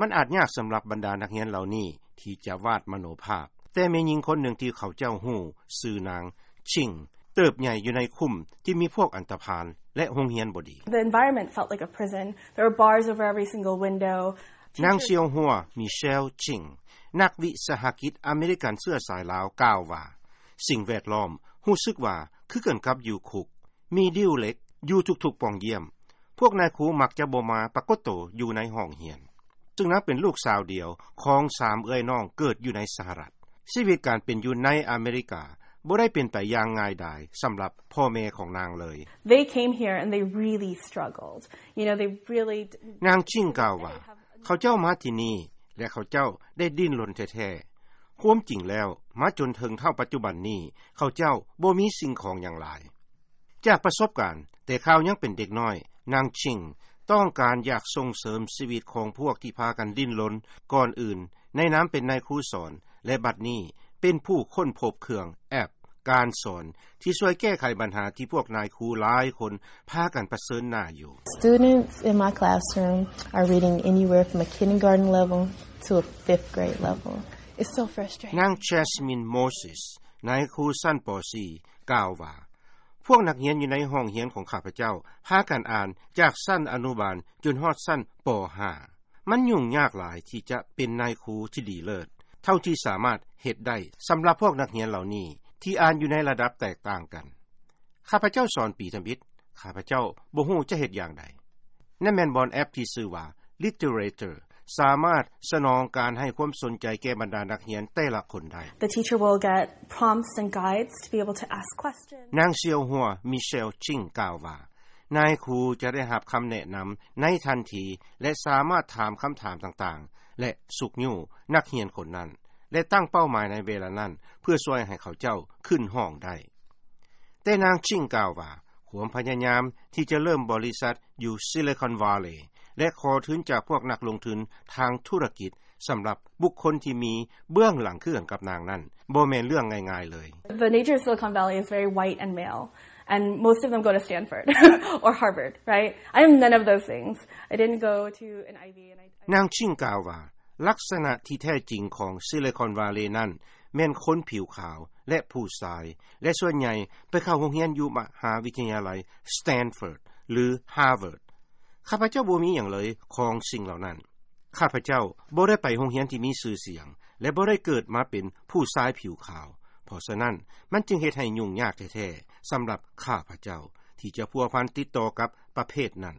ມັນອາດຍາກສຳລັບບັນດານັກຮຽນເຫຼົ່ານີ້ທີ່ຈະວາດມະໂນພາບ. ແຕ່ແມ່ຍິງຄົນໜຶ່ງທີ່ເຂົາເຈົ້າຮູ້ ຊື່ນາງ Ching ເຕີບໃຫຍ່ຢູ່ໃນຄຸ້ມທີ່ມີພວກອັນຕະພານ ແລະ ໂຮງຮຽນບໍ່ດີ. The environment felt like a prison. There were bars over every single window. ນາງ Teachers ຊຽວຫົວ ມີເຊວ Ching ນັກວິສາຫະກິດອາເມລິກັນເຊື້ອສາຍລາວ ກ່າວວ່າ ສິ່ງແວດລ້ອມຮູ້ສຶກວ່າຄືກັນກັບຢູ່ຄຸກ, ມີດິ້ວເຫຼັກຢູ່ທຸກໆປ່ອງຢ້ຽມ. ພວກນາຍຄູມັກຈະບໍ່ມາປາກົດໂຕຢູ່ໃນຫ້ອງຮຽນ, ຊຶ່ງນາງເປັນລູກສາວດຽວຂອງສາມເອື້ອຍນ້ອງເກີດຢູ່ໃນສະຫະລັດ. ຊີວິດການເປັນຢູ່ໃນອາເມລິກາບໍ່ໄດ້ເປັນໄປຢ່າງງ່າຍດາຍສຳລັບພໍ່ແມ່ຂອງນາງເລີຍ. They came here and they really struggled. You know, they really ນາງ Ching ກ່າວວ່າ ເຂົາເຈົ້າມາທີ່ນີ້ ແລະ ເຂົາເຈົ້າໄດ້ດີ້ນລົນແທ້ໆ. ຄວາມຈິງແລ້ວ ມາຈົນເຖິງເທົ່າປັດຈຸບັນນີ້ ເຂົາເຈົ້າບໍ່ມີສິ່ງຂອງຫຍັງຫຼາຍ. ຈາກປະສົບການແຕ່ຄາວຍັງເປັນເດັກນ້ອຍ, ນາງ Ching ຕ້ອງການຢາກສົ່ງເສີມຊີວິດຂອງພວກທີ່ພາກັນດີ້ນລົນກ່ອນອື່ນ ໃນນາມເປັນນາຍຄູສອນ ແລະ ບັດນີ້ເປັນຜູ້ຄົ້ນພົບເຄື່ອງແອັບການສອນ ທີ່ຊ່ວຍແກ້ໄຂບັນຫາທີ່ພວກນາຍຄູຫຼາຍຄົນພາກັນປະເຊີນໜ້າຢູ່. Students in my classroom are reading anywhere from a kindergarten level to a fifth grade level. It's so frustrating. ນາງ Jasmine Moses ນາຍຄູຊັ້ນ ປໍສີ່ ກ່າວວ່າ ພວກນັກຮຽນຢູ່ໃນຫ້ອງຮຽນຂອງຂ້າພະເຈົ້າພາກັນອ່ານຈາກຊັ້ນອະນຸບານຈົນຮອດຊັ້ນ ປໍຫ້າ. ມັນຫຍຸ້ງຍາກຫຼາຍທີ່ຈະເປັນນາຍຄູທີ່ດີເລີດເທົ່າທີ່ສາມາດເຮັດໄດ້ສຳລັບພວກນັກຮຽນເຫຼົ່ານີ້ທີ່ອ່ານຢູ່ໃນລະດັບແຕກຕ່າງກັນ. ຂ້າພະເຈົ້າສອນປີທຳອິດ, ຂ້າພະເຈົ້າບໍ່ຮູ້ຈະເຮັດຢ່າງໃດ. ນັ້ນແມ່ນບ່ອນແອັບທີ່ຊື່ວ່າ Literator ສາມາດສະໜອງການໃຫ້ຄວາມສົນໃຈແກ່ບັນດານັກຮຽນແຕ່ລະຄົນໄດ້. The teacher will get prompts and guides to be able to ask questions. ນາງ ຊຽວຫົວ ມີເຊວ Ching ກ່າວວ່າ ນາຍຄູຈະໄດ້ຮັບຄຳແນະນຳໃນທັນທີ ແລະ ສາມາດຖາມຄຳຖາມຕ່າງໆ ແລະ ຊຸກຍູ້ນັກຮຽນຄົນນັ້ນ ແລະ ຕັ້ງເປົ້າໝາຍໃນເວລານັ້ນ ເພື່ອຊ່ວຍໃຫ້ເຂົາເຈົ້າຂຶ້ນຫ້ອງໄດ້. ແຕ່ນາງ Ching ກ່າວວ່າ ຄວາມພະຍາຍາມທີ່ຈະເລີ່ມບໍລິສັດຢູ່ Silicon Valley ແລະ ຂໍທຶນຈາກພວກນັກລົງທຶນທາງທຸລະກິດ ສຳລັບບຸກຄົນທີ່ມີເບື້ອງຫຼັງຄືກັນກັບນາງນັ້ນ ບໍ່ແມ່ນເລື່ອງງ່າຍໆເລີຍ. The nature of Silicon Valley is very white and male, and most of them go to Stanford or Harvard, right? I am none of those things. I didn't go to an Ivy, and I ນາງ Ching ກ່າວວ່າ ລັກສະນະທີ່ແທ້ຈິງຂອງ Silicon Valley ນັ້ນແມ່ນຄົນຜິວຂາວ ແລະ ຜູ້ຊາຍ ແລະ ສ່ວນໃຫຍ່ໄປເຂົ້າໂຮງຮຽນຢູ່ມະຫາວິທະຍາໄລ Stanford ຫຼື Harvard. ຂ້າພະເຈົ້າບໍ່ມີຫຍັງເລີຍຂອງສິ່ງເຫຼົ່ານັ້ນ. ຂ້າພະເຈົ້າບໍ່ໄດ້ໄປໂຮງຮຽນທີ່ມີຊື່ສຽງ ແລະ ບໍ່ໄດ້ເກີດມາເປັນຜູ້ຊາຍຜິວຂາວ. ເພາະສະນັ້ນ ມັນຈຶ່ງເຮັດໃຫ້ຫຍຸ້ງຍາກແທ້ໆ ສຳລັບຂ້າພະເຈົ້າທີ່ຈະພົວພັນຕິດຕໍ່ກັບປະເພດນັ້ນ.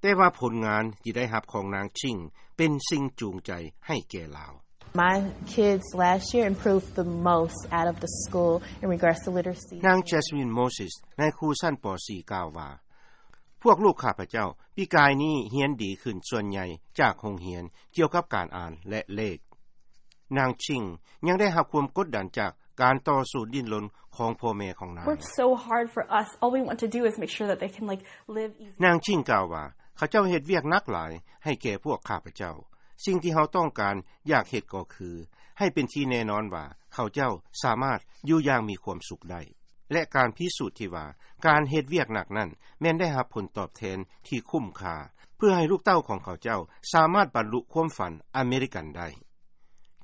ແຕ່ວ່າຜົນງານທີ່ໄດ້ຮັບຂອງນາງ Ching ເປັນສິ່ງຈູງໃຈໃຫ້ແກ່ລາວ. My kids last year improved the most out of the school in regards to literacy. ນາງ Jasmine Moses ນາຍຄູຊັ້ນ ປໍສີ່ ກ່າວວ່າ ພວກລູກຂ້າພະເຈົ້າປີກາຍນີ້ຮຽນດີຂຶ້ນສ່ວນໃຫຍ່ຈາກໂຮງຮຽນກ່ຽວກັບການອ່ານ ແລະ ເລກ. ນາງ Ching ຍັງໄດ້ຮັບຄວາມກົດດັນຈາກການຕໍ່ສູ້ດີ້ນລົນຂອງພໍ່ແມ່ຂອງນາງ. Worked so hard for us. All we want to do is make sure that they can, like, live easy. ນາງ Ching ກ່າວວ່າ ເຂົາເຈົ້າເຮັດວຽກໜັກຫຼາຍໃຫ້ແກ່ພວກຂ້າພະເຈົ້າ. ສິ່ງທີ່ເຮົາຕ້ອງການຢາກເຮັດກໍຄື ໃຫ້ເປັນທີ່ແນ່ນອນວ່າເຂົາເຈົ້າສາມາດຢູ່ຢ່າງມີຄວາມສຸກໄດ້ ແລະ ການພິສູດທີ່ວ່າການເຮັດວຽກໜັກນັ້ນແມ່ນໄດ້ຮັບຜົນຕອບແທນທີ່ຄຸ້ມຄ່າ ເພື່ອໃຫ້ລູກເຕົ້າຂອງເຂົາເຈົ້າສາມາດບັນລຸຄວາມຝັນອາເມລິກັນໄດ້.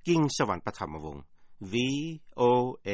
ກິງສະຫວັນ ປະຖຳມະວົງ VOA.